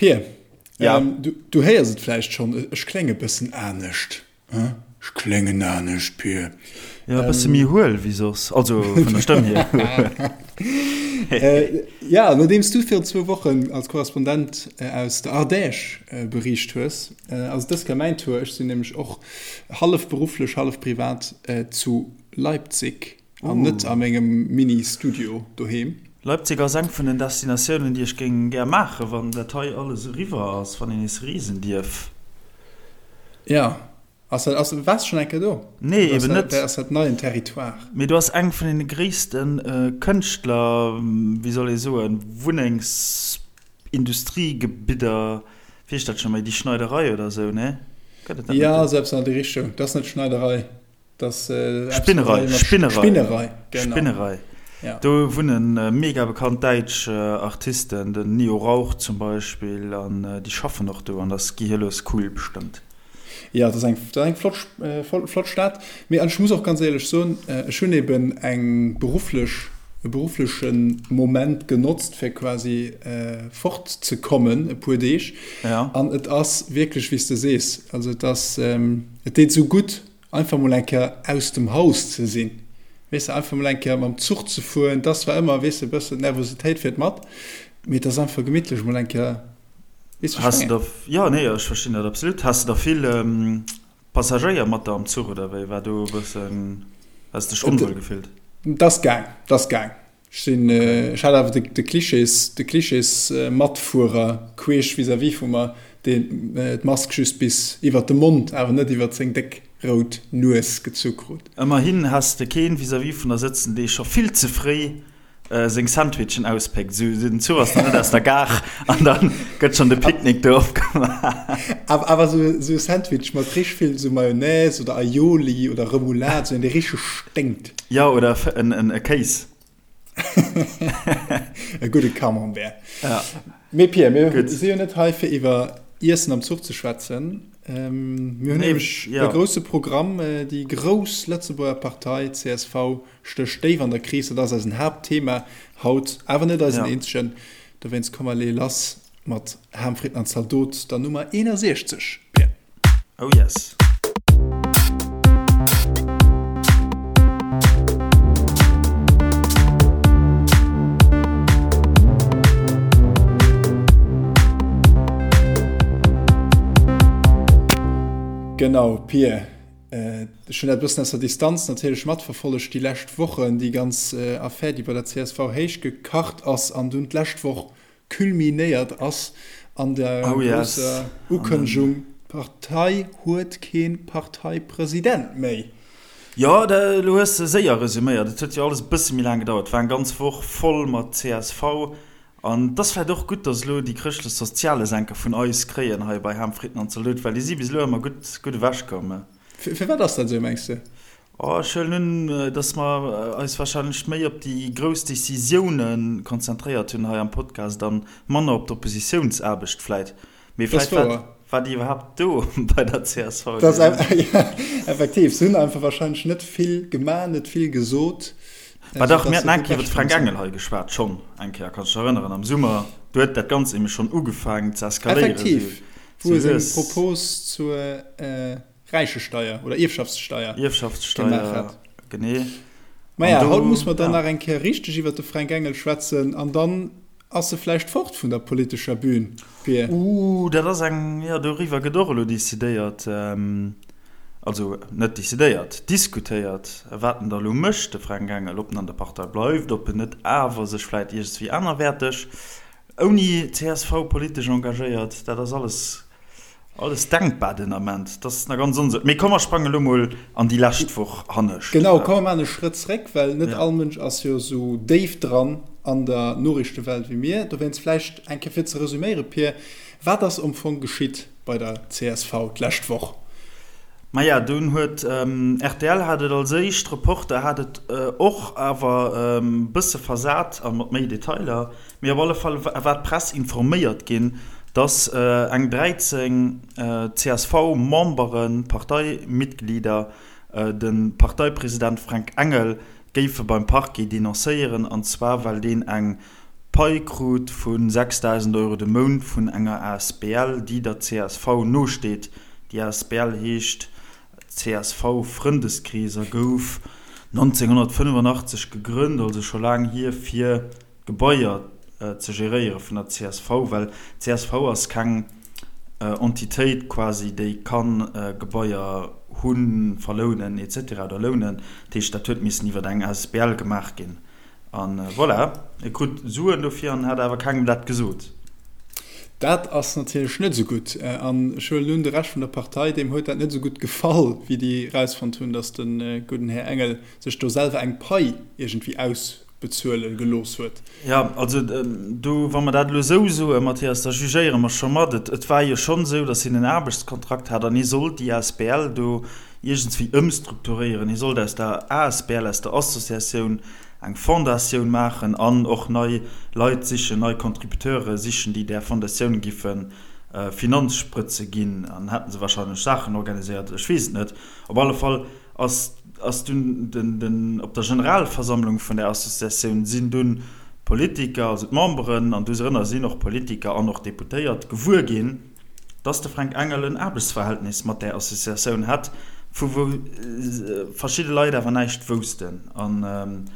Pir, ja. ähm, du, du héiers et vläicht schonn, ech klénge bëssen anescht. Ech kléngen anescht, Pir. Ja, e bësse méi huel wéi soss, also vun der Stëmm hier. äh, ja, nodeems du virun zwou Wochen als Korrespondent äh, aus der Ardèche äh, bericht hues, äh, ass et dës Kéier mäin Tour. Ech sinn nämlech och hallef berufflech, hallef privat äh, zu Leipzig. An net a mengem Mini-Studio doheem. Leipzig ass eng vun den Destinatiounen, déi ech géing gär maachen, wann dat hei alles eriwwer ass, wann een nees reesen dierf. Ja, ass dat, ass, waars de schonn eng Kéier do? Nee, eben net. Ass dat neien Territoire? Mee do ass eng vun den gréisste Kënschtler, wéi soll ee soen, Wunnengsindustriegebidder, wéi heescht dat scho méi, déi Schneiderei oder esou, nee? Gëtt et dat net? Ja, esou eppes an déi Richtung. Dat ass net Schneiderei. Das, äh, Spinnerei, Spinnerei. Spinnerei, genau. Spinnerei. Ja. Do wunnen äh, mega bekannt däitsch äh, Artisten, den Nio Rauch zum Beispill, an äh, déi schaffen och do, an das gehirlos cool bestëmmt. Ja, das ist eng, das eng flott, äh, flott Stad. Mee an ech muss och ganz éierlech soen, äh, ech hunn eben eng berufflech, e berufflechen Moment genotzt, fir quasi äh, fortzekommen e puer Deeg. Ja. An et ass wierklech, wéi s de sees, also et ass, ähm, et deet esou gutt, Einfach mol eng Kéier aus dem Haus ze sinn, weess de, einfach mol eng Kéier mam Zuch ze fueren, 't ass zwar ëmmer, weess de, e bëssen d'Nervositéit fiert mat, mee et ass einfach gemittlech mol eng Kéier, weess de, wéi ech mengen? Jo, nee, ech verstinn dat absolut. Has de da vill Passagéier mat der am Zuch oder wéi war do e bëssen, has de dech onwuel gefillt? 't ass gaang, 't ass gaang. Ech sinn, ech hat awer de Klischees, de Klischees-Matfuerer queesch vis-à-vis vu mer, deen d'Mask just bis iwwert de Mond, awer net iwwert seng déck rout Nues gezu krut. Ëmmerhin has de keen vis-à-vis vun der sëtzen, dee scho vill ze fréi seng Sandwichen auspéckt. Esou, den Zuch ass nach net aus der Gare an da gëtt schonn de Picknick do opgemaach. Awer esou e Sandwich mat richteg vill esou Mayonnaise oder Aioli oder Remoulade, esou een, dee richteg sténkt. Jo, oder e Kéis. E gudde Camembert. Ja. Mee Pierre, mir si jo net hei fir iwwer Iessen am Zuch ze schwätzen. Ähm, mir hunn nämlech e grousse Programm. Déi grouss Lëtzebuerger Partei csv stécht déif an der Kris. Dat ass eisen Haaptthema haut, awer net eisen eenzegen. Dowéinst komm mer leeë lass mat Ham, Fritten an Zaldot, der Nummer 61, Pierre. Oh yes. Genau, Pir. Ech hunn dat e bëssen aus der Distanz natierlech matverfollegt déi lescht Wochen, déi ganz Affär, déi bei der csv héichgekacht ass an dunn d'lescht Woch culminéiert ass an der grousser Ukënnegung, d'Partei huet kee Parteipresident méi. Jo, elo hues de séier resuméiert. Et huet jo alles e bësse méi laang gedauert. Et war eng ganz Woch voll mat csv. An et ass vläicht och gutt, datt elo déi Chrëschtlech-Sozialesenker vun eis kréien hei bei Ham, Fritten an Zalot, well déi si bis elo ëmmer gutt ewechkomm. Firwat ass dat esou, mengs de? Oh, ech huelen un, dass mer eis wahrscheinlech méi op déi grouss Décisioune konzentréiert hunn hei am Podcast a manner op d'Oppositiounsaarbecht vläit. Mee vläit war, war déi iwwerhaapt do bei der csv? Dat ass, ja, effektiv. Se hunn einfach wahrscheinlech net vill gemaach, net vill gesot. Bah dach, mir haten eng Kéier iwwer de Fränk Engel hei geschwat, schonn eng Kéier, kanns dech erënneren, am Summer. Do huet dat Ganzt nämlech schonn ugefaangen ze eskaléieren. Effektiv, wou e seng Propos zur. Räichesteier oder Ierfschaftssteier gemaach hat. Genee. Maja, haut muss mer dann nach eng Kéier richteg iwwer de Fränk Engel schwätzen an dann ass e vläicht fort vun der politescher Bühn, Pir. Uh, dat ass eng, jo, doriwwer gëtt och elo decidéiert, also net decidéiert, diskutéiert, wat en da elo mécht, de Fränk Engel, ob en an der Partei bleift, ob en net awer sech vläicht iergendswéi anerwäerteg ouni csv politesch engagéiert. Dat ass alles Alles denkbar den Ament, dat ass nach ganz onsécher. Mee komm mer sprange lo mol an déi lescht Woch hannescht. Genau, komm mer maachen e Schrëtt zréck, well net all Mënsch ass jo esou déif dran an der Noriichtewelt wéi mir. Dowéinst vläicht eng Kéier fir ze resüméiere Pir, wat ass am Fong geschitt bei der csv d'lescht Woch? Maja, dunn huet rtl hat et als éischt, Reporter hat et och, awer e bësse versat a mat méi Detailer. Mee op alle Fall war d'Press informéiert ginn, datt eng 13 CSV-Memberen, Parteimitglieder, de Parteipresident Fränk Engel géife beim Parquet denoncéieren, an zwar well deen eng. Pai krut vu 6.000 Euro de Mount vun enger asbl, déi der csv nosteet. Déi asbl heescht csv Frëndeskrees a gouf 1985 gegrënnt, also scho laang hier, fir Gebaier ze geréiere vun der csv, well csv ass keng Entitéit quasi, déi ka Gebaier hunn, verlounen et cetera oder lounen. Dat heescht, dat huet missen iwwer eng asbl gemaach ginn. A voilà, e krut Suen dofir an hat awer kengem dat gesot. Dat ass natierlech net esou gutt. An ech huelen un, de Rescht vun der Partei, deem huet dat net esou gutt gefall, wéi déi erausfonnt hunn, datt de gudden Här Engel sech do selwer eng Pai iergendwéi ausbezuele gelooss huet. Jo, also do, wa mer dat elo esou soen, Mathias, da jugéiere mer scho mat. Et war jo schonn esou, datt hien en Aarbechtskontrakt hat an hie sollt déi asbl do iergendswéi ëmstrukturéieren. Hie sollt aus der asbl, aus der Associatioun, eng Fondatioun maachen an och nei Leit sichen, nei Contributeure sichen, déi där Fondatioun giffe Finanzsprëtze ginn. An hätte se wahrscheinlech Saachen organiséiert, ech weess et net. Op alle Fall ass ass dunn den, den, op der Generalversammlung vun där Associatioun sinn dunn d'Politiker, also d'Memberen, an dosrënner sinn och Politiker an och Deputéiert, gewuer ginn, dass de Fränk Engel en Aarbechtsverhältnis mat där Associatioun hätt, vu wou verschidde Leit awer näischt woussten. An.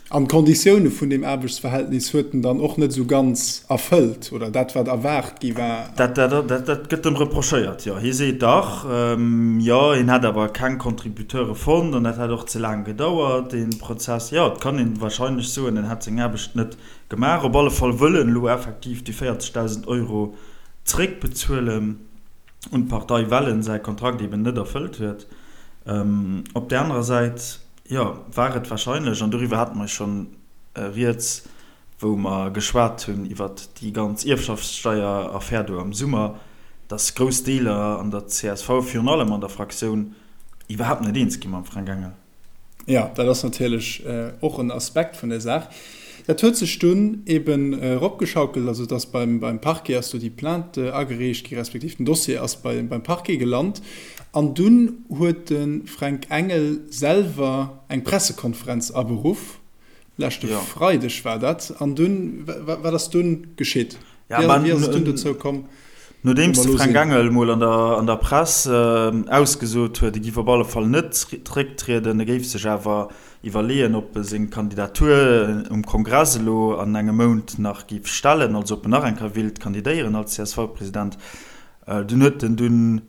An d'Konditioune vun deem Aarbechtsverhältnis huet en dann och net esou ganz erfëllt, oder dat, wat erwaart gi war. Dat, dat gëtt em reprochéiert, jo. Hie seet dach, jo, hien hätt awer keng Contributeure fonnt an dat hätt och ze laang gedauert, dee Prozess. Jo, et kann ee warscheinlech soen, en hätt seng Aarbecht net Gemaach. Op alle Fall wëll en elo effektiv déi 40.000 Euro zeréckbezuelen un d'Partei, well en säi Kontrakt eben net erfëllt huet. Op där anerer Säit, jo, war et warscheinlech, an doriwwer hate mer schonn rieds, wou mer geschwat hunn iwwert déi ganz Ierfschaftssteier-Affär do am Summer, datt grouss Deeler an der csv, virun allem an der Fraktioun, iwwerhaapt net eens gi mam Fränk Engel. Jo, dat ass natierlech och en Aspekt vun der Saach. Dat huet sech dunn eben eropgeschaukelt, also et ass beim Parquet ass do déi Plainte agereecht gi, respektiv den Dossier ass beim Parquet gelant. An dunn huet de Fränk Engel selwer eng Pressekonferenz aberuff, Leschte Freideg war dat. An dunn, wat ass dunn geschitt? Wéi ass et dunn dozou komm? Nodeems de Fränk Engel mol an der Press ausgesot huet, e giff op alle Fall net zrécktrieden, e géif sech awer iwwerleeën, ob e seng Kandidatur um Kongress elo an engem Mount nach giff stellen, also ob en nach eng Kéier willt kandidéieren als CSV-President, dunn huet en dunn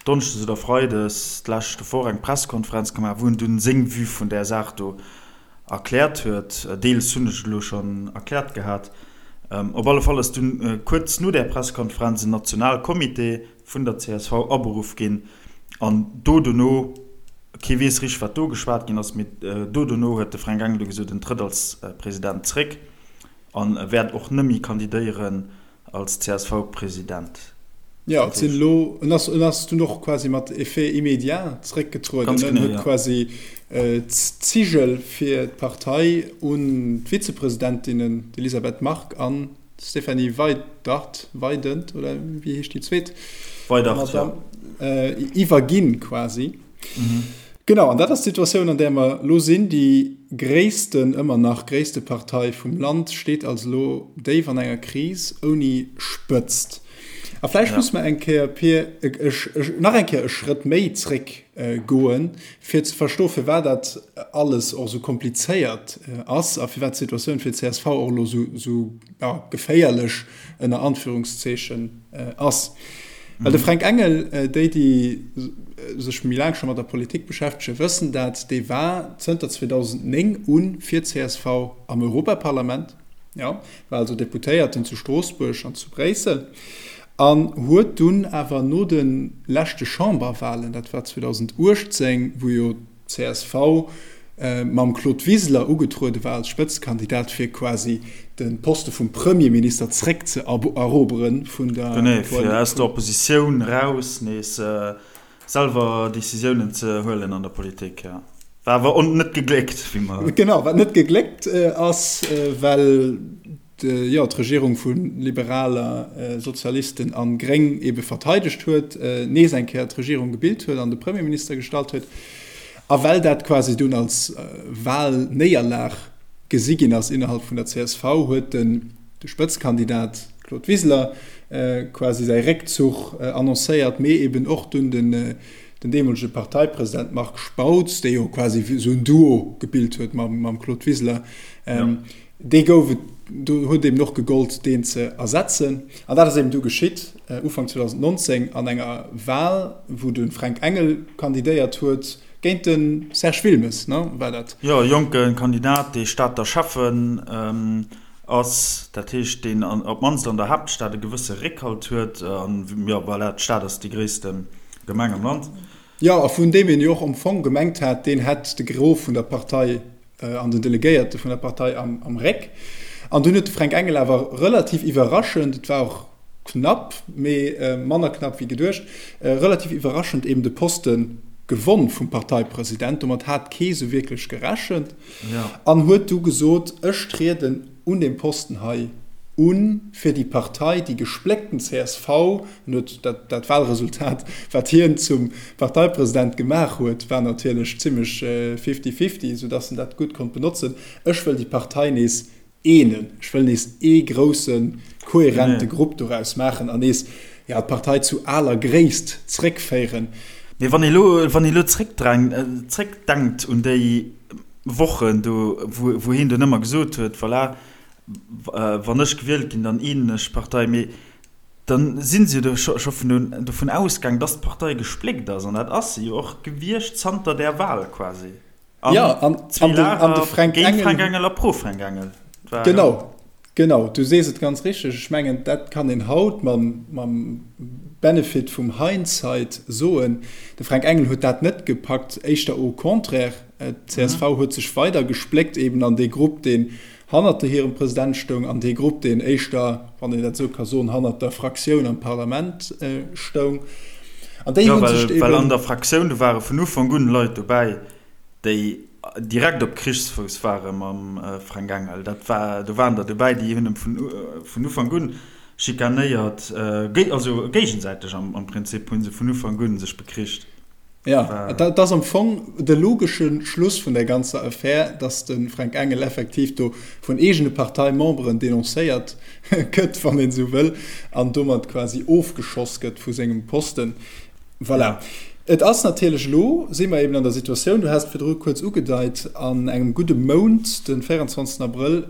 Donneschdes oder Freides d'leschte Woch eng Pressekonferenz gemaach, wou en dunn seng Vue vun där Saach do erkläert huet. Deels hunn ech et elo schonn erkläert gehat. Op alle Fall ass dunn kuerz no där Pressekonferenz en Nationalcomité vun der csv aberuff ginn an do dono, kee weess richteg wat do geschwat ginn ass, mee do dono huet de Fränk Engel du gesot, en trëtt als President zréck an wäert och nëmmi kandidéieren Als CSV-President. Jo, et sinn elo, en ass, en ass dunn och quasi mat Effet immédiat zréckgetrueden. Ganz genau, jo. En huet quasi d'Zigel fir d'Partei un d'Vizepresidentinnen, d'Elisabeth Margue an d'Stéphanie Weydert, Weydent, oder wéi heescht déi zweet? Weydert, jo. Iwwerginn quasi. Genau, an dat ass d'Situatioun, an där mer elo sinn. Déi gréissten, ëmmer nach gréisste Partei vum Land steet also elo déif an enger Kris ouni Spëtzt. A vläicht muss mer eng Kéier, Pir, nach eng Kéier e Schrëtt méi zréck goen, fir ze verstoen, firwat dat alles och esou komplizéiert ass a firwat d'Situatioun fir d'CSV och elo esou geféierlech ënner Anführungszeechen ass. Well de Fränk Engel, déi déi sech méi laang scho mat der Politik beschäftegen, wëssen dat, dee war zënter 2009 u fir csv am Europaparlament, jo, war also Deputéierten zu Stroossbuerg an zu Bréissel an huet dunn awer no de leschte Chamberwahlen, dat war 2018, wou jo Csv mam Claude Wiseler ugetruede war als Spëtzekandidat fir quasi de Poste vum Premierminister zréck ze erobere vun der Genee, fir aus der Oppositioun raus nees selwer Decisiounen ze huelen an der Politik, jo. War awer net gegléckt, wéi mer. Genau, wat net gegléckt ass, well jo, d'Regierung vu Liberaler, Sozialisten a Gréng ebe verteidegt huet, nees eng Kéier d'Regierung gebilt huet an de Premierminister gestallt huet, a well dat quasi dunn als Wahlnéierlag. gesi ginn ass innerhalb vun der csv, huet den de Spëtzkandidat Claude Wiseler quasi säi Réckzuch annoncéiert, mee eben och dunn den den deemolege Parteipresident Marc Spautz, dee jo quasi esou en Duo gebilt huet mam Claude Wiseler, dee gouf et, do huet eben och gegollt, deen ze ersetzen. An dat ass eben du geschitt, Ufank 2019 an enger Wal, wou de Fränk Engel kandidéiert huet géint de Serge Wilmes, ne, war dat? Jo, e jonke Kandidat, dee Stater Schäffen ass, dat heescht, deen op d'mannst an der Haaptstad e gewësse Réckhalt huet. An, jo, voilà, d'Stad ass déi gréisste Gemeng am Land. Jo, a vun deem een jo och am Fong gemengt hat, deen hätt de Gros vun der Partei an den Delegéierte vun der Partei am Réck. An dunn huet de Fränk Engel awer relativ iwwerraschend, et war och knapp, mee manner knapp wéi geduecht, relativ iwwerraschend eben de Poste gewonn vum Parteipresident. Domat hat kee sou wierklech gerechent. An huet du gesot, ech trieden un deem Posten hei un fir déi Partei, déi gespléckten csv, en huet dat, dat Wahlresultat, wat hien zum Parteipresident gemaach huet, war natierlech zimmlech fifty-fifty, soudass en dat gutt konnt benotzen, ech wëll déi Partei nees eenen, ech wëll nees ee groussen, kohärente Grupp doraus maachen an nees, jo, d'Partei zu aler Gréisst zréckféieren. Mee wann ee lo, wann ee lo zréckdenkt un déi Wochen do, wou, wou hien dunn ëmmer gesot huet, voilà, wann ech gewielt ginn, dann eenen ech d'Partei, mee dann si se jo do scho vun dovun ausgaang, dass d'Partei gespléckt ass, an dat ass se jo och gewiescht zanter där Wahl quasi. An ja, an, an, de, an de Fränk Engel, Fränk Engel a pro Fränk Engel. Genau, genau, du sees et ganz richteg. Ech mengen, dat kann een haut mam, mam Benefit vum Hindsight soen. De Fränk Engel huet dat net gepackt, éischter au contraire. D'CSV huet sech weider gespléckt eben an dee Grupp, deen hannert de hirem President stoung, an dee Grupp, deen éischter, wann een dat esou ka soen, hannert der Fraktioun am Parlament stoung. An déi hu sech eben. Well an der Fraktioun, do ware vun Ufank un Leit dobäi, déi direkt op Krichsfouss ware mam Fränk Engel. Dat war, do waren der dobäi, déi hunn em vun Ufank un schikanéiert, also géigesäiteg am Prinzip hu se vun Ufank un sech bekricht. Jo, et ass am Fong de logesche Schluss vun där ganzer Affär, datt de Fränk Engel effektiv do vun eegene Parteimemberen denoncéiert gëtt, wann een esou wëll, an domat quasi ofgeschoss gëtt vu sengem Posten. Voilà. Et ass natierlech elo, si mer eben an der Situatioun, du has et virdru kuerz ugedeit, an engem gudde Mount, de 24 Abrëll,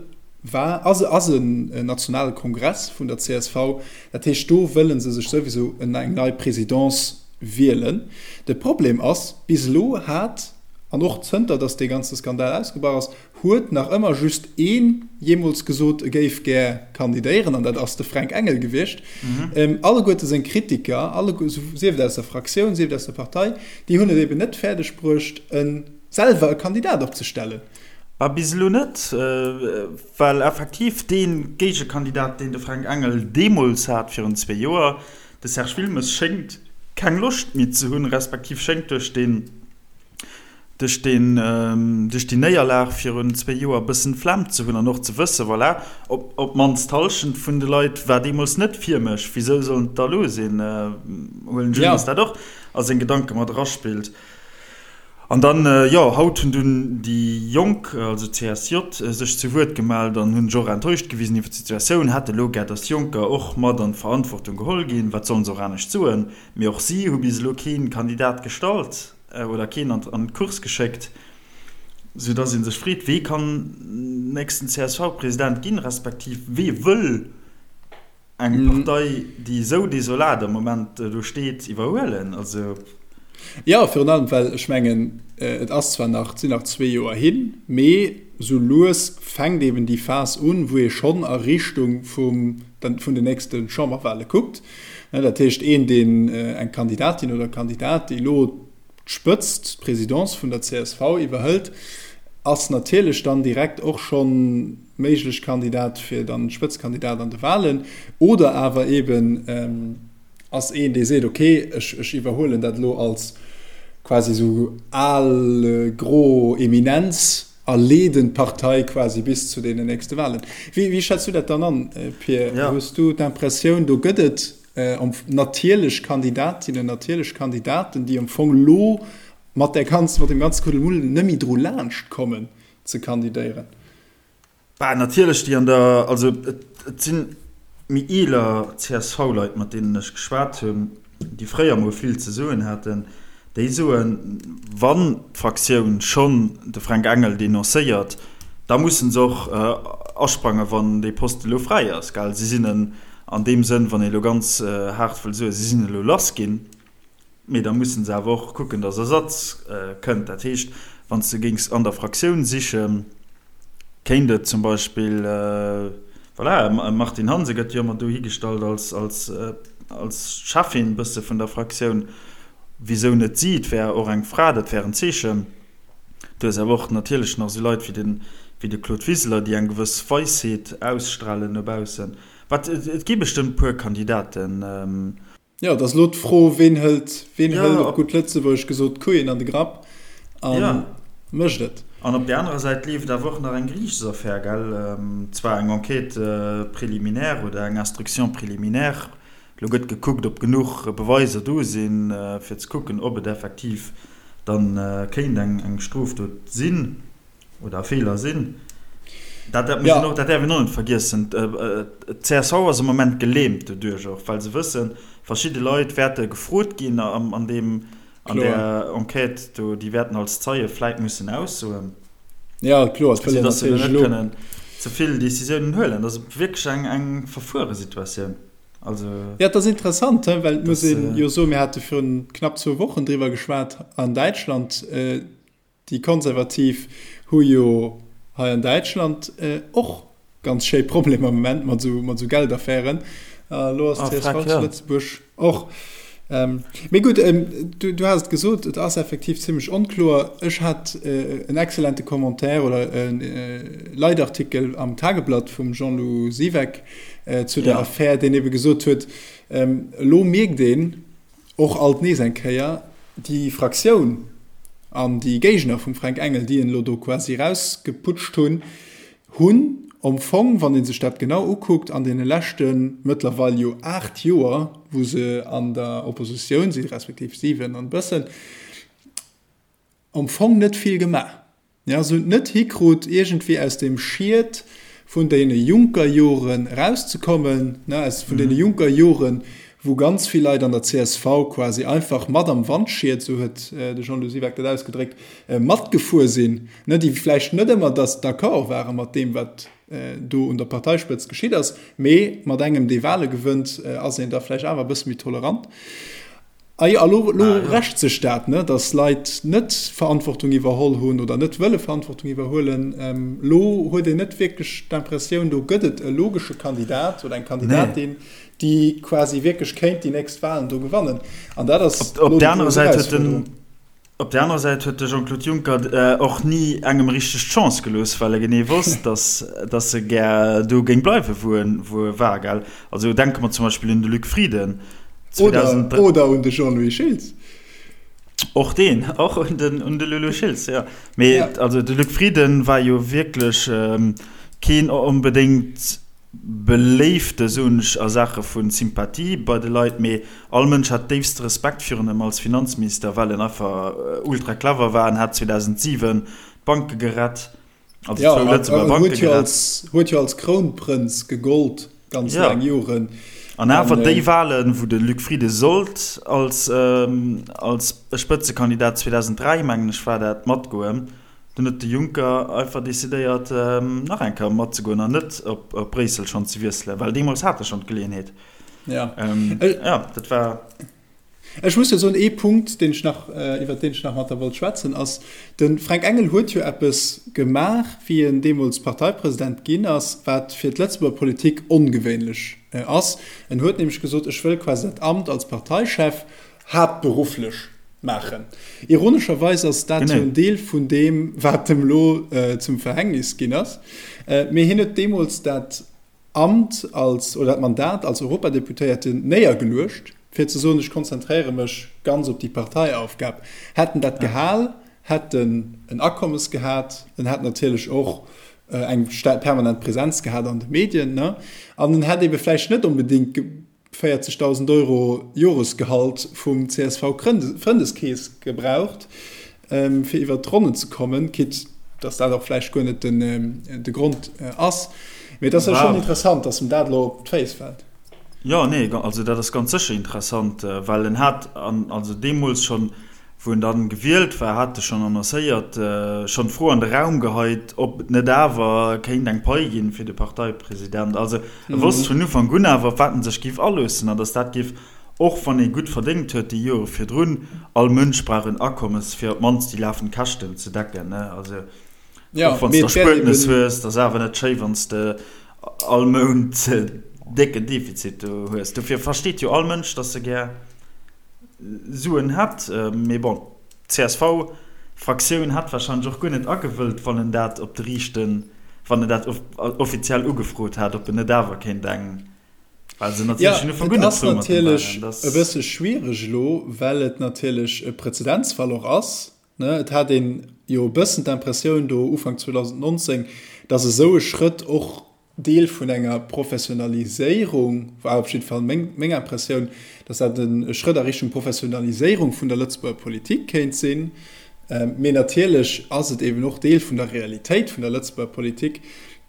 war, ass, ass en nationale Kongress vun der csv. Dat heescht, do wëlle se sech souwisou eng nei Présidence wielen. De Problem ass, bis elo hat, an och zënter datt dee ganze Skandal ausgebrach ass, huet nach ëmmer just een jeemools gesot, e géif gär kandidéieren, an dat ass de Fränk Engel gewiescht. Alleguerte seng Kritiker, alleguer, sief et aus der Fraktioun, sief et aus der Partei, déi hunn et eben net fäerdeg bruecht, e selwer e Kandidat opzestellen. Bah, bis elo net, well effektiv dee Géigekandidat, deen de Fränk Engel deemools hat, virun zwee Joer, De Serge Wilmes schéngt keng Loscht méi ze hunn, respektiv schéngt duerch deen, duerch deen, duerch déi Néierlag virun zwéi Joer e bëssen d'Flemm ze hunn an och ze wëssen, voilà, op, op d'mannst d'Hallschent vun de Leit war deemools net fir mech, wisou sollen et da elo sinn? Huelen ech un, datt dat och a seng Gedanke mat eraspillt. An dann, jo, haut hunn dunn déi Jonk, also d'CSJ, sech zu Wuert gemellt an hunn sech och enttäuscht gewisen iwwer d'Situatioun, hätte elo gär, datt Jonker och mat an d'Verantwortung geholl ginn. Wat sollen se och anescht soen? Mee och si hu bis elo kee Kandidat gestallt oder keen an d'Course geschéckt, soudatt ee sech freet, Wee kann nächsten CSV-President ginn, respektiv wee wëll Eng Partei, déi esou desolat am Moment do steet, iwwerhuelen? Also. Jo, virun allem, well ech mengen, et ass zwar nach, et sinn nach zwee Joer hin, mee esou lues fänkt eben déi Phas un, wou ee schonn a Richtung vum, vun den nächste Chamberwahle kuckt. Dat heescht, een, deen, eng Kandidatin oder e Kandidat, déi elo d'Spëtzt, d'Presidence vun der csv iwwerhëlt, ass natierlech dann direkt och schonn méiglech Kandidat fir dann Spëtzkandidat an de Wahlen. Oder awer eben ass een, dee seet, okay, ech, ech iwwerhuelen dat elo als quasi esou al gro Eminenz a leeden d'Partei quasi bis zu deenen nächste Wahlen. Wéi, wéi schätz du dat dann an, Pir? Hues du d'Impressioun, do gëtt et natierlech Kandidatinnen, natierlech Kandidaten, déi am Fong elo mat där ganzen, mat deem ganze Kuddelmuddel net méi dru laanscht kommen ze kandidéieren? Bah, natierlech déi an der, also et si méi eeler CSV-Leit, mat deenen ech geschwat hunn, déi fréier mol vill ze soen haten, déi soen, wann d'Fraktioun schonn de Fränk Engel denoncéiert, da musse se och asprangen, wann dee Poste elo fräi ass, gell. Si sinn en an deem Sënn, wann ee elo ganz haart wëll soen, si sinn elo lass ginn. Mee da mussen se awer och kucken, datt Ersatz kënnt. Dat heescht, wann s de géings an der Fraktioun sichen, kéint et zum Beispill, voilà, e Martine Hansen gëtt jo ëmmer do higestallt als, als, als Cheffin bësse vun der Fraktioun. Wisou net si? Et wär och eng Fra, dat wär en Zeechen. Du hues awer och natierlech nach esou Leit wéi den, wéi de Claude Wiseler, déi eng gewëss Weisheet ausstralen no baussen. Wat, et gi bestëmmt e puer Kandidaten. Jo, et ass elo d'Fro, ween hëlt, ween hëlt op gutt Lëtzebuergesch gesot d'Koeien an de Grapp a mécht et. An op där anerer Säit leeft awer och nach eng Geriichtsaffär, gell? Zwar eng Enquête préliminaire oder eng Instruction préliminaire. Elo gëtt gekuckt, ob genuch Beweiser do sinn, fir ze kucken, ob et effektiv dann kéint eng Strofdot sinn. Oder Feeler sinn. Dat, dat, ja. och, dat däerf een och net vergiessen. D'CSV ass am Moment gelähmt doduerch och, well se wëssen, verschidde Leit wäerte gefrot ginn an, an deem, an der Enquête do, déi wäerten als Zeie vläit mussen aussoen. Ja, kloer, et wëll een natierlech elo. Net kënnen ze vill Decisiounen huelen. Dat ass wierklech eng, eng verfuere Situatioun. Also, ja, dat ass interessant, well et muss een jo soen, mir hate virun knapp zwou Wochen driwwer geschwat an Däitschland, Déi Konservativ hu jo hei an Däitschland och ganz schéi Problemer am Moment mat esou Geldaffären. A lo ass d'CSV zu Lëtzebuerg och. Mee gutt, du has et gesot, et ass effektiv zimmlech onkloer. Ech hat en excellente Commentaire oder e Leitartikel am Tageblatt vum Jean-Lou Siweck zu der Affär, deen ebe gesot huet, elo mierkt een, Och alt nees eng Kéier, déi Fraktioun an déi Géigner vum Fränk Engel, déi en elo do quasi erausgeputscht hunn, hunn am Fong, wann ee sech dat genau ukuckt, an deene leschte mëttlerweil jo 8 Joer, wou se an der Oppositioun sinn, respektiv 7 an e bëssen, am Fong net vill gemaach. Jo, se hunn et net hikrut, iergendwéi aus deem Schied vun deene Juncker-Joren erauszekommen, ne, aus vun deene Juncker-Joren, wou ganz vill Leit an der csv quasi einfach mat am Wandschied, esou huet de Jean-Lou Siweck dat ausgedréckt, matgefuer sinn, ne, déi vläicht net ëmmer dass d'accord ware mat deem, wat do un der Parteispëtzt geschitt ass, mee mat engem, dee Wahle gewënnt, ass een da vläicht awer e bësse méi tolerant. A jo, a lo, lo rächt sech dat, ne, datt Leit net Verantwortung iwwerholl hunn oder net wëlle Verantwortung iwwerhuelen. Lo huet een net wierklech d'Impressioun, do gëtt et e logesche Kandidat oder eng Kandidatin, déi quasi wierklech kéint déi nächst Wahlen do gewannen. An dat ass lo déi grouss Erausfuerderung. Op där anerer Säit huet de Jean-Claude Juncker och ni engem richteg d'Chance gelooss, well e genee wosst, datt datt e gär do géing bleiwen, wou en wou e war, gell? Also denke mer zum Beispill un de Luc Frieden. Oder, oder un de Jean-Louis Schiltz. Och deen, och un den un de Lulu Schiltz, jo. Mee also de Luc Frieden war jo wierklech keen onbedéngt Beléifte, soen ech, a Saache vu Sympathie bei de Leit, mee all Mënsch hat déifste Respekt virun em als Finanzminister, well en einfach ultra clever war. En hat 2007 d'Banke gerett, also zwou Lëtzebuerger Banke gerett. Huet jo als Krounprënz gegollt ganz laang Joren. An awer déi Wahlen, wou de Luc Frieden sollt als als Spëtzekandidat 2003, mengen ech war dat, matgoen, Dunn huet de Juncker einfach decidéiert, nach eng Kéier matzegoen an net op Bréissel schonn ze wiesselen, well deemools hat e schonn d'Geleeënheet. Ja. Ja, dat war. Ech muss jo soen, ee Punkt, deen ech nach, iwwert deen ech nach mat der wollt schwätzen, ass, de Fränk Engel huet jo eppes gemaach, wéi en deemools Parteipresident ginn ass, wat fir d'Lëtzebuerger Politik ongewéinlech ass. En huet nämlech gesot, ech wëll quasi dat Amt als Parteichef haaptberufflech maachen. Ironescherweis ass dat jo en Deel vun deem, wat em elo zum Verhängnis ginn ass. Mee hien huet deemools dat Amt als, oder dat Mandat als Europadeputéierten néiergeluecht, fir ze soen, ech konzentréiere mech ganz op déi Parteiaufgab. Hätt en dat gehal, hätt en en Akommes gehat, en hätt natierlech och eng permanent Präsenz gehat an de Medien, ne? An en hätt ebe vläicht net onbedéngt 40.000 Euro Joresgehalt vum CSV-Frëndeskeess gebraucht, fir iwwert d'Ronnen ze kommen, quitte. Dass dat och vläicht guer net den, de Grond ass. Mee et ass jo schonn interessant, dass em dat elo op d'Féiss fält. Jo, nee, also dat ass ganz sécher interessant, well en hat, an also deemools schonn, wou en dann gewielt war, hat e schonn annoncéiert, schonn d'Fro an de Raum geheit, ob et net awer kéint eng Pai ginn fir de Parteipresident. Also e wosst vun Ufank un awer, op wat en sech géif aloossen an datt dat géif, och wann ee gutt verdéngt huet déi Jore virdrun, all Mënsch brauch en Akommes, fir op d'mannst déi lafend Käschten ze decken, ne? Also och wann s de Erspuertnes hues, dat ass awer net schéi, wann s de all Mount décken Defizit do hues. Dofir versteet jo all Mënsch, datt e gär Suen hätt. Mee bon, d'CSV-Fraktioun hätt warscheinlech och guer net agewëllt, wann en dat op de riichten, wann en dat offiziell ugefrot hätt, ob en net awer kéint eng, well se natierlech vun Ufank un net frou mat him waren. Et ass natierlech e bësse schwiereg elo, well et natierlech e Präzedenzfall och ass. Ne, et hat een jo e bëssen d'Impressioun do Ufank 2019, datt esou e Schrëtt och Deel vun enger Professionaliséierung war, op jidde Fall meng, meng Impressioun, datt dat e Schrëtt a Richtung Professionaliséierung vun der Lëtzebuerger Politik kéint sinn. Mee natierlech ass et eben och Deel vun der Realitéit vun der Lëtzebuerger Politik,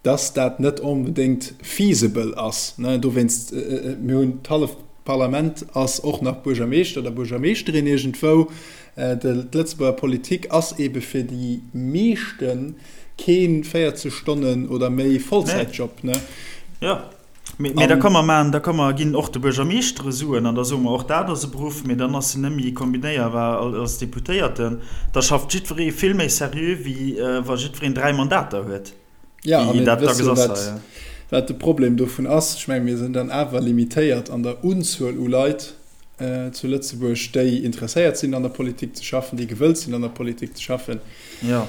datt dat net onbedéngt feasible ass. Dowéinst, mir hunn d'halleft Parlament ass och nach Buergermeeschter oder Buergermeeschterin iergendwou. D'Lëtzebuerger Politik ass ebe fir déi meeschte kee 40 Stonnen oder méi Vollzäitjob. Ne? Jo, mee da ka mer maachen, da ka mer ginn och de Buergermeeschtere Suen an da soe mer och, dat ass e Beruff, mee dann ass en net méi kombinéierbar als Deputéierten. Da schafft jiddweree vill méi seriö wéi wa jiddwereen 3 Mandater huet. Ja, a mir wësse jo, wat, wat de Problem dovun ass. Ech menge mir sinn dann awer limitéiert an der Unzuel u Leit zu Lëtzebuerg, déi interesséiert sinn, an der Politik ze schaffen, déi gewëllt sinn, an der Politik ze schaffen. Ja.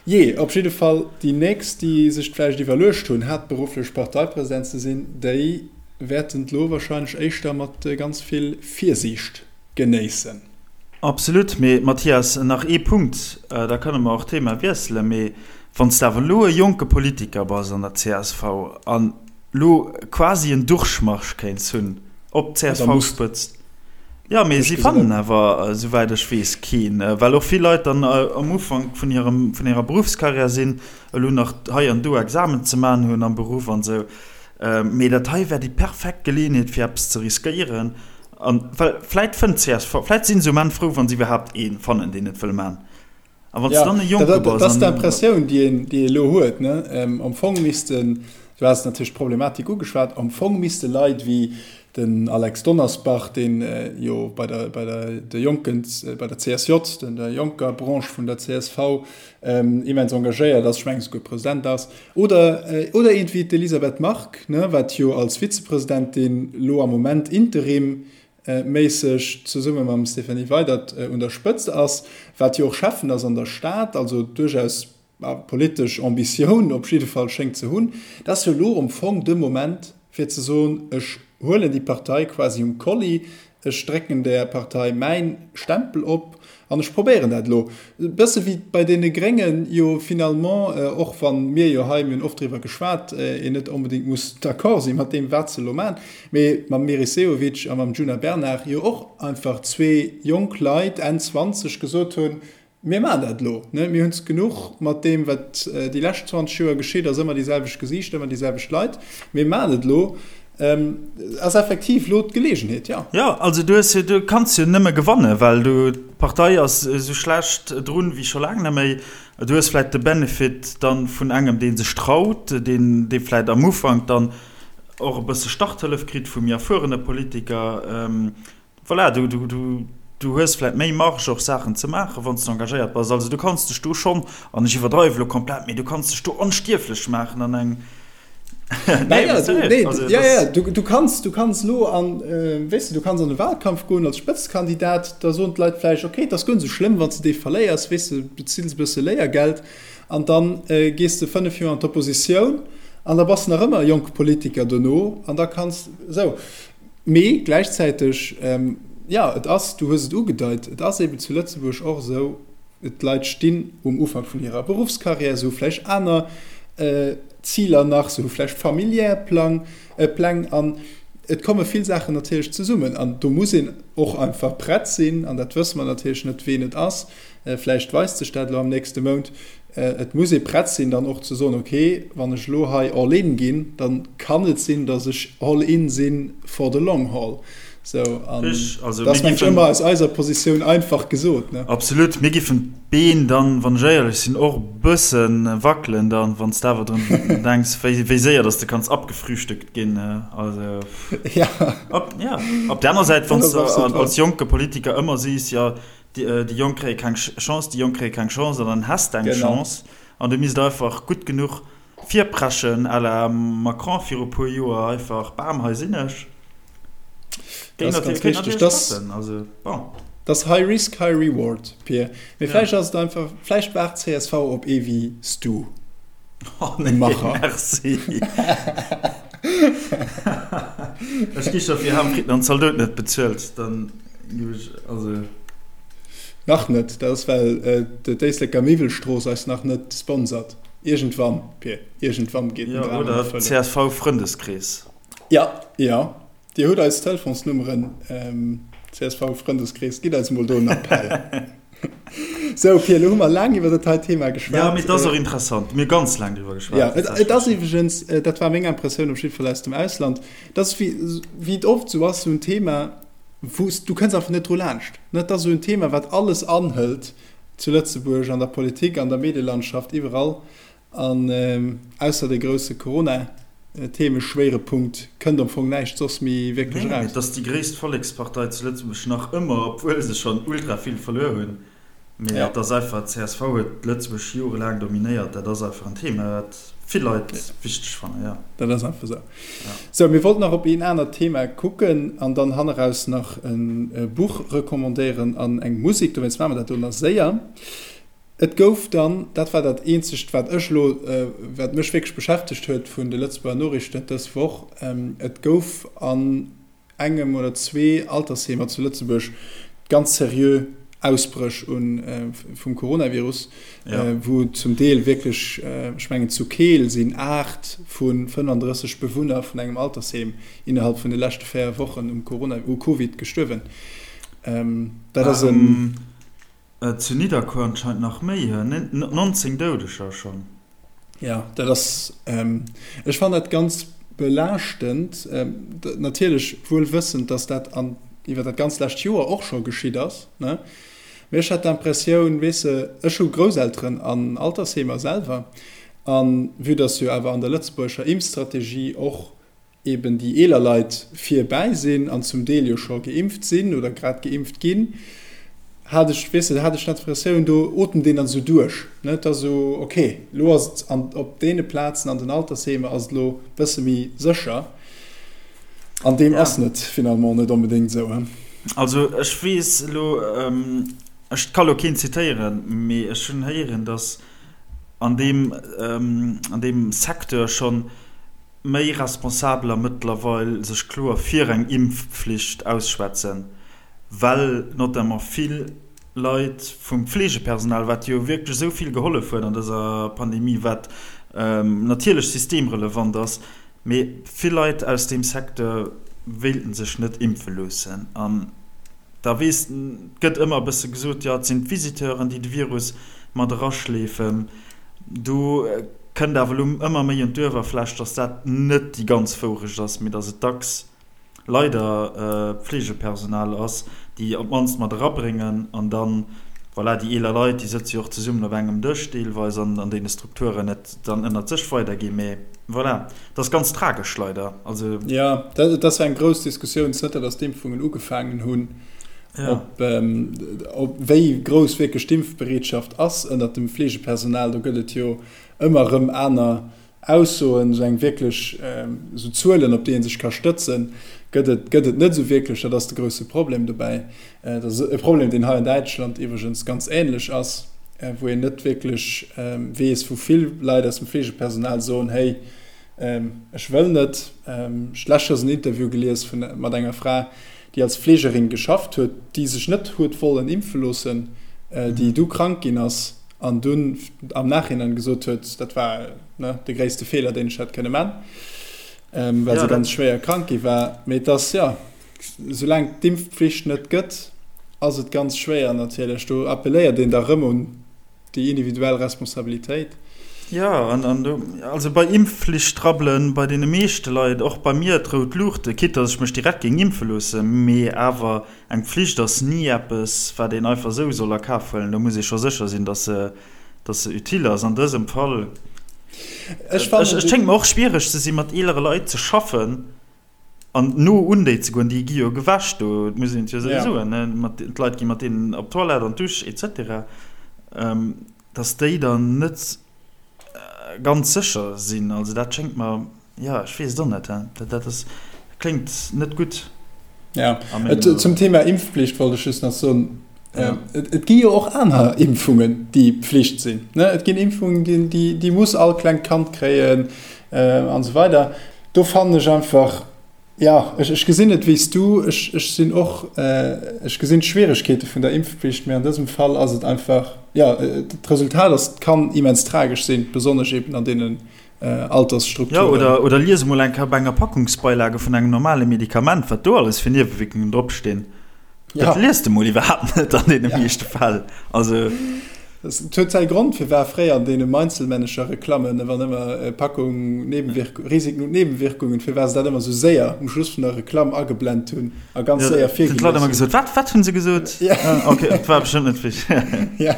Jee, op jidde Fall, déi nächst, déi sech vläicht iwwerluecht hunn, haaptberufflech Parteipresident ze sinn, déi wäerten et elo wahrscheinlech éischter mat ganz vill Virsiicht genéissen. Absolut. Mee Mathias, nach ee Punkt, da kënne mer och d'Thema wiesselen. Mee wann s de awer elo e jonke Politiker bass an der csv an elo quasi en Durchmarsch kéints hunn op d'CSV-Spëtzt, jo, mee si fannen awer, esouwäit ech weess, keen, well och vill Leit dann am Ufank vun hirem, vun hirer Beruffskarriär sinn, elo nach hei an do Examen ze maachen hunn am Beruff an esou. Mee dat hei wär déi perfekt Geleeënheet fir eppes ze riskéieren. An well vläit fënnt csv, vläit sinn se um Enn frou, wa se iwwerhaapt ee fannen, deen et wëll man. A wann s dann e Jonke bass. Dat ass d'Impressioun, déi een, déi ee elo huet, ne? Am Fong missten, du has natierlech d'Problematik ugeschwat, am Fong misste Leit wéi den Alex Donnersbach, deen jo bei der, bei der, de Jonken, bei der CSJ, der jonker Branche vun der csv, immens engagéiert ass, ech mengen esouguer President ass, oder, oder eent wéi d'Elisabeth Margue, ne, wat jo als Vizepresidentin lo am Moment interimméisseg zesumme mam Stéphanie Weydert un der Spëtzt ass, wat jo och Schäffen ass an der Stad, also duerchaus politesch Ambitioun op jidde Fall schéngt ze hunn, dat ass jo elo am Fong de Moment fir ze soen, ech huelen déi Partei quasi um Kolli, Ech drécken där Partei mäin Stempel op an ech probéieren dat elo. E bësse wéi bei deene Gréngen jo finalement, och wa mir jo hei, mir hunn oft driwwer geschwat, een net onbedéngt muss d'accord si mat deem wat se elo maachen, mee mam Meris Sehovic a mam Djuna Bernard jo och einfach zwee jonk Leit, Enn 20, gesot hunn, Mir maachen dat elo. Mir hunn es genuch mat deem, wat déi lescht 20 Joer geschitt ass, ëmmer déi selwecht Gesiichter, ëmmer déi selwecht Leit. Mir maachen et elo. Ass effektiv elo d'Geleegenheet, jo. Jo, also du hues jo, du kanns jo nëmme gewannen, well du, d'Partei ass esou schlecht drun wéi scho laang net méi. Du hues vläicht de Benefit dann vun engem, dee sech traut, deen, dee vläicht am Ufank dann och e bësse Starthëllef kritt vu méi erfuerene Politiker. Voilà, du, du, du, du hues vläit méi Marge och Saachen ze maachen, wann s du engagéiert bass. Also du kanns dech do schonn, an ech iwwerdreiwe lo komplett, mee du kanns dech do onstierflech maachen an eng, nee, ja, du, nee, also, ja, ja, du, du kanns, du kanns lo an, äh, weess de, du kanns an de Wahlkampf goen als Spëtzekandidat, da soen d'Leit vläicht, okay, et ass guer net esou schlëmm, wann s de dee verléiers, weess de, bezills e bësse Léiergeld an dann äh, gees de 5 Joer an d'Oppositioun an da bass de nach ëmmer e jonke Politiker dono an da kanns esou. Mee gläichzäiteg, jo, et ass, du hues et ugedeit, et ass eeben zu Lëtzebuerg och esou, d'Leit stinn um Ufank vun hirer Beruffskarriär, se hu vläicht aner Ziler nach, se hu vläicht familiär Plang, Pläng. An. Et komme vill Saachen natierlech zesummen an do muss een och einfach prett sinn, an dat wësse mer natierlech net, ween et ass, vläicht weist sech dat elo am nächste Mount, et muss ee prett sinn dann och ze soen, okay, wann ech elo hei all in ginn, da kann et sinn, datt ech all in sinn for the long haul. Sou, an dat ass mengen ech ëmmer aus eiser Positioun einfach gesot, ne? Absolut. Mir giffen d'Been dann, wann ech éierlech sinn, och e bësse wackelen dann, wann s de awer drun denks, wéi, wéi séier dass de kanns abgefrühstückt ginn. Also, ja. Op, ja. Op der aner Säit, wann s de als jonke Politiker ëmmer sees, jo, déi, déi Jonk kréie keng Chance, déi Jonk kréie keng Chance, an dann häss de eng Chance an du misst einfach gutt genuch Virpreschen à la Macron viru puer Joer, einfach bam, hei sinn ech. Dat ass ganz richteg. Dat ass High Risk, High Reward, Pir. Mee vläicht ass et einfach, vläicht waart csv op ee wéi s du. Oh nee, merci. Ech gi scho fir Ham Fritten an Zaldoten net bezuelt, dann gi ech, also. Nach net, dat ass well d'Éisleker Miwwelstrooss eis nach net sponsert. Iergendwann, Pir, iergendwann geet den Dram an Erfëllung. Oder CSV-Frëndeskrees. Ja, ja. Dir hutt eis Telefonsnummeren, CSV-Frëndeskrees, gitt eis emol do en Appell. Sou, Pir, elo hu mer laang iwwer dat hei Thema geschwat. Ja, mee et ass och interessant. Mir hu ganz laang driwwer geschwat. Ja, et ass iwwregens, dat war meng Impressioun op jidde Fall aus dem Ausland, et ass wéi, wéi et oft esou ass, esou en Thema, wou s, du kënns einfach net dru laanscht. Et ass esou en Thema, wat alles anhëlt. Zu Lëtzebuerg, an der Politik, an der Medielandschaft, iwwerall. An ausser de grousse Corona-Themeschwéirepunkt kënnt am Fong näischt soss méi wierklech eraus. Et ass déi gréisst Vollekspartei zu Lëtzebuerg, nach ëmmer, obwuel se schonn ultra vill verluer hunn. Mee et ass einfach, csv huet Lëtzebuerg jorelaang dominéiert. Dat ass einfach en Thema, wat vill Leit wichteg fannen, jo. Dat ass einfach esou. Sou, mir wollten nach op een anert Thema kucken an dann hanneraus nach e Buch recommandéieren an eng Musek. Dowéinst maache mer dat do nach séier. Et gouf dann, dat war dat eenzegt, wat ech elo, wat mech wierklech beschäftegt huet vun de Lëtzebuerger Noriichten dës Woch, et gouf an engem oder zwee Altersheemer zu Lëtzebuerg ganz seriö Ausbréch vum Coronavirus, wou zum Deel wierklech, ech mengen zu Keel sinn 8 vu 35 Bewunner vun engem Altersheem innerhalb vun de leschte 4 Wochen um Corona, u Covid gestuerwen. Dat ass en. Zu Nidderkuer anscheinend nach méi, 19 Doudeger schonn. Jo, dat ass, ech fannen dat ganz belaaschtend, natierlech wuel wëssend, datt dat an iwwer dat ganz lescht Joer och scho geschitt ass, ne? Mee ech hat d'Impressioun, weess de, ech hu Grousselteren an Altersheemer selwer, a vue datt jo awer an der lëtzebuergescher Impfstrategie och eben déi eeler Leit virbäi sinn an zum Deel jo scho geimpft sinn oder grad geimpft ginn, hat ech, weess de, hat ech d'Impressioun, do otemt een dann esou duerch, ne, et ass esou, ok, elo ass et an, op deene Plazen an den Altersheemer ass et elo e bësse méi sécher. An deem ass net finalement net onbedéngt esou, he. Also ech weess elo, ech ka lo keen zitéieren, mee ech hunn héieren, datt an deem, an deem Secteur schonn méi Responsabeler mëttlerweil sech kloer fir eng Impfpflicht ausschwätzen, well notamment vill Leit vum Pflegepersonal, wat jo wierklech esou vill gehollef huet an dëser Pandemie, wat natierlech systemrelevant ass, mee vill Leit aus deem Secteur wéilten sech net impfe loossen. An da weess, et gëtt ëmmer e bësse gesot, jo et sinn d'Visiteuren, déi de Virus mat eraschleefen. Do kënnt awer elo ëmmer méi un d'Uewerfläch, dass dat net déi ganz Wourecht ass, mee dass et dacks leider Pflegepersonal ass, déi op d'mannst mat erabréngen. An dann, voilà, déi eeler Leit, déi sëtze jo och zesummen op engem Dësch deelweis an an deene Strukturen, et dann ënnert sech weiderginn. Mee voilà, et ass ganz tragesch leider. Also. Jo, dat ass eng grouss Diskussioun, zënter dass d'Impfungen ugefaangen hunn. Ob, ob wéi grouss wierklech d'Impfbereetschaft ass ënnert dem Fleegepersonal, do gëtt et jo ëmmer erëm aner Aussoen, esou eng wierklech, esou Zuelen, op déi ee sech ka stëtzen, gëtt et, gëtt et net esou wierklech. Dat ass de grousse Problem dobäi. Dat ass e Problem, deen hei an Däitschland iwwregens ganz änlech ass, wou een net wierklech weess, wou vill Leit aus dem Fleegepersonal soen, Hey, ech wëll net. Ech lescht Joers en Interview gelies vun, mat enger Fra, déi als Fleegerin geschafft huet, déi sech net huet wollen impfe loossen, déi du krank ginn ass an dunn am Nachhinein gesot huet, dat war, ne, de gréisste Feeler, deen ech hätt kënne man. well se ganz schwéier krank gi war. Mee et ass, jo, soulaang d'Impfpflicht net gëtt, ass et ganz schwéier natierlech. Do appelléiert een da rëm un déi individuell Responsabilitéit. Jo, an do, also bei Impfflicht rabbelen bei deene meeschte Leit, och bei mir, d'rout Luuchte, quitte dass ech mech direkt géing impfe loossen, mee awer eng Pflicht ass ni eppes, wat een einfach esou soll a Kaf huelen. Do muss ee scho sécher sinn, dass se, dass se utile ass. An dësem Fall, Ech fannen, et schéngt mer och schwiereg ze sinn, mat eelere Leit ze schaffen an no un déi ze goen. Déi gi jo gewäsch do, et muss een et jo esou soen, ne, mat, d'Leit gi mat deenen op d'Toilette, an d'Dusch et cetera, dass déi dann net ganz sécher sinn. Also dat schéngt mer, jo, ech weess et och net, dat, dat ass, kléngt net gutt. Ja, et, zum Thema Impfpflicht wollt ech just nach soen, ja. et, et gi jo och aner Impfungen, déi Pflicht sinn. Ne? Et ginn Impfungen, déi, déi, déi muss all klengt Kand kréien äh, an esou weider. Do fannen ech einfach, ja, ech, ech gesinn et wéi s du, ech, ech sinn och, äh, ech gesinn d'Schwieregkeete vun der Impfpflicht, mee an dësem Fall ass et einfach, ja, d'Resultat ass, kann immens tragesch sinn, besonnesch eben an deenen Altersstrukturen. Jo, oder, oder lies emol eng Kéier op enger Packungsbeilage vun engem normale Medikament, wat do alles fir Niewewierkungen dropstinn. Dat liest de mol iwwerhaapt net an deene meeschte Fäll. Also. Et huet säi Grond, firwat fréier an deene Meinzelmännecher-Reklammen, wann ëmmer Packung, Nebenwirk-, Risiken und Nebenwirkungen, firwat se dat ëmmer esou séier um Schluss vun der Reklamm ageblent hunn a ganz séier virgelies hunn. D'Leit ëmmer gesot, Wat, wat hunn se gesot? Ok, et war bestëmmt net wichteg. Ja.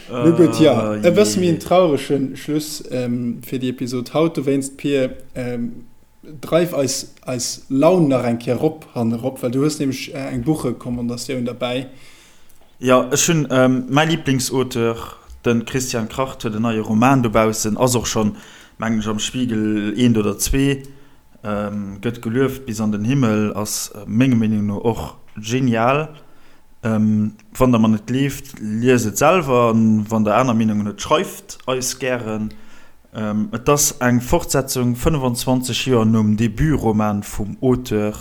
Nu gutt, jo, e bësse méi en traurege Schluss fir déi Episod haut. Dowéinst, Pir, dreif eis eis Laun nach eng Kéier erop hannerop, well du hues nämlech eng Buchrecommandatioun derbäi. Jo, ech hunn mäi Liblingsauteur, de Christian Kracht, huet en neie Roman dobaussen, ass och schonn, mengen ech, am Spiegel eent oder zwee, gëtt gelueft bis an den Himmel, ass menger Meenung no och genial. Wann der mer net gleeft, liest et selwer, an wann der aner Meenungen hutt, schreift eis gären. Et ass eng Fortsetzung 25 Joer nom Debutroman vum Auteur,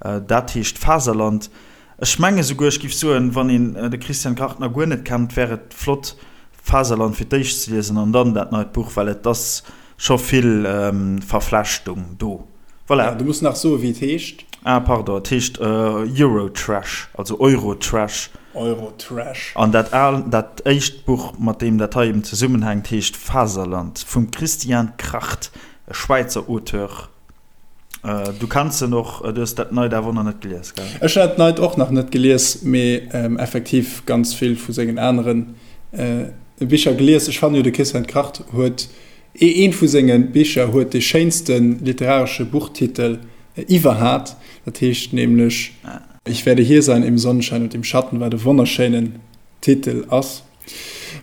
dat heescht Faserland. Ech menge souguer, ech giff soen, wann een de Christian Kracht nach guer net kennt, wär et flott Faserland fir d'éischt ze liesen an dann dat neit Buch, well et ass scho vill Verflechtung do. Voilà. Du muss nach soen, wéi et heescht. Ah, pardon, et heescht Eurotrash, also Eurotrash. Eurotrash. An dat al, dat éischt Buch, mat deem dat hei eben zesummenhänkt, heescht Faserland vum Christian Kracht, e Schwäizer Auteur. Du kenns en och, du hues dat neit awer och nach net gelies, gell? Ech hunn dat neit och nach net gelies, mee effektiv ganz vill vu sengen anere Bicher gelies. Ech fannen jo, de Christian Kracht huet Eent vu senge Bicher huet dee schéinste literaresche Buchtitel iwwerhat, dat heescht nämlech Ich werde hier sein im Sonnenschein und im Schatten, wat e wonnerschéinen Titel ass.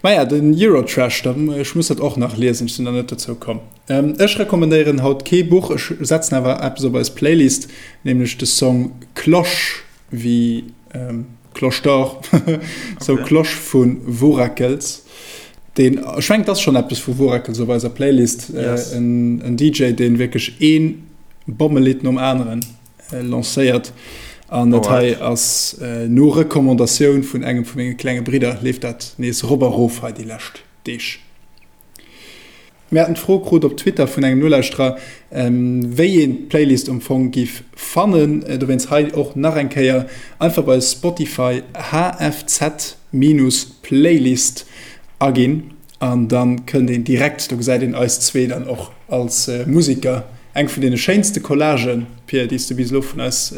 Maja, den Eurotrash, ech muss dat och nach liesen, ech sinn nach net dozou komm. Ech recommandéieren haut kee Buch, ech setzen awer eppes op eis Playlist, nämlech de Song Cloche wéi Cloche d'Or, sou Cloche vu Worackels. Deen, ech mengen, et ass schonn eppes vu Worackels op eiser Playlist. Yes. En, en DJ, deen wierklech ee Bommelidd nom aneren lancéiert. An dat hei ass no Recommandatioun vun engem vu menge klenge Bridder, leeft dat nees rop a rof hei déi lescht Deeg. Mir haten d'Fro krut op Twitter vun engem Nolauschterer, wéi een d'Playlist um Fong giff fannen. Dowéinst hei och nach eng Kéier, einfach bei Spotify HFZ-Playlist aginn an dann kënnt een direkt, do gesäit een eis zwee dann och als Musiker. Eng vun deene schéinste Collagen, Pir, déi s du bis elo vun eis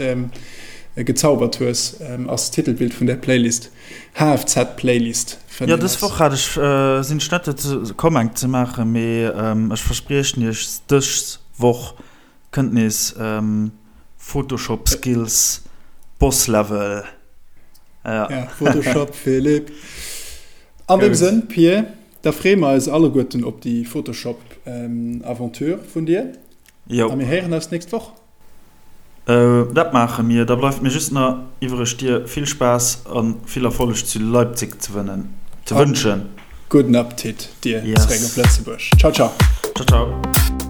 gezaubert hues, ass d'Titelbild vun där Playlist. HFZ Playlist fënnt Jo, een dës eis. Woch hat ech, sinn ech net dozou komm eng ze maachen, mee ech verspriechen iech, dës Woch kënnt nees Photoshop Skills Boss Level. Ja. Ja, Photoshop Philippe. An deem Sënn, Pir, da freeë mer eis alleguerten op déi Photoshop Aventure vun dir. Jo. A mir héieren eis d'nächst Woch. Dat maache mir. Da bleift mir just nach iwwereg dir vill Spaass a vill Erfolleg zu Leipzig ze wënschen. Gudden Appetit dir zeréck op Lëtzebuerg. Ciao ciao. Ciao ciao.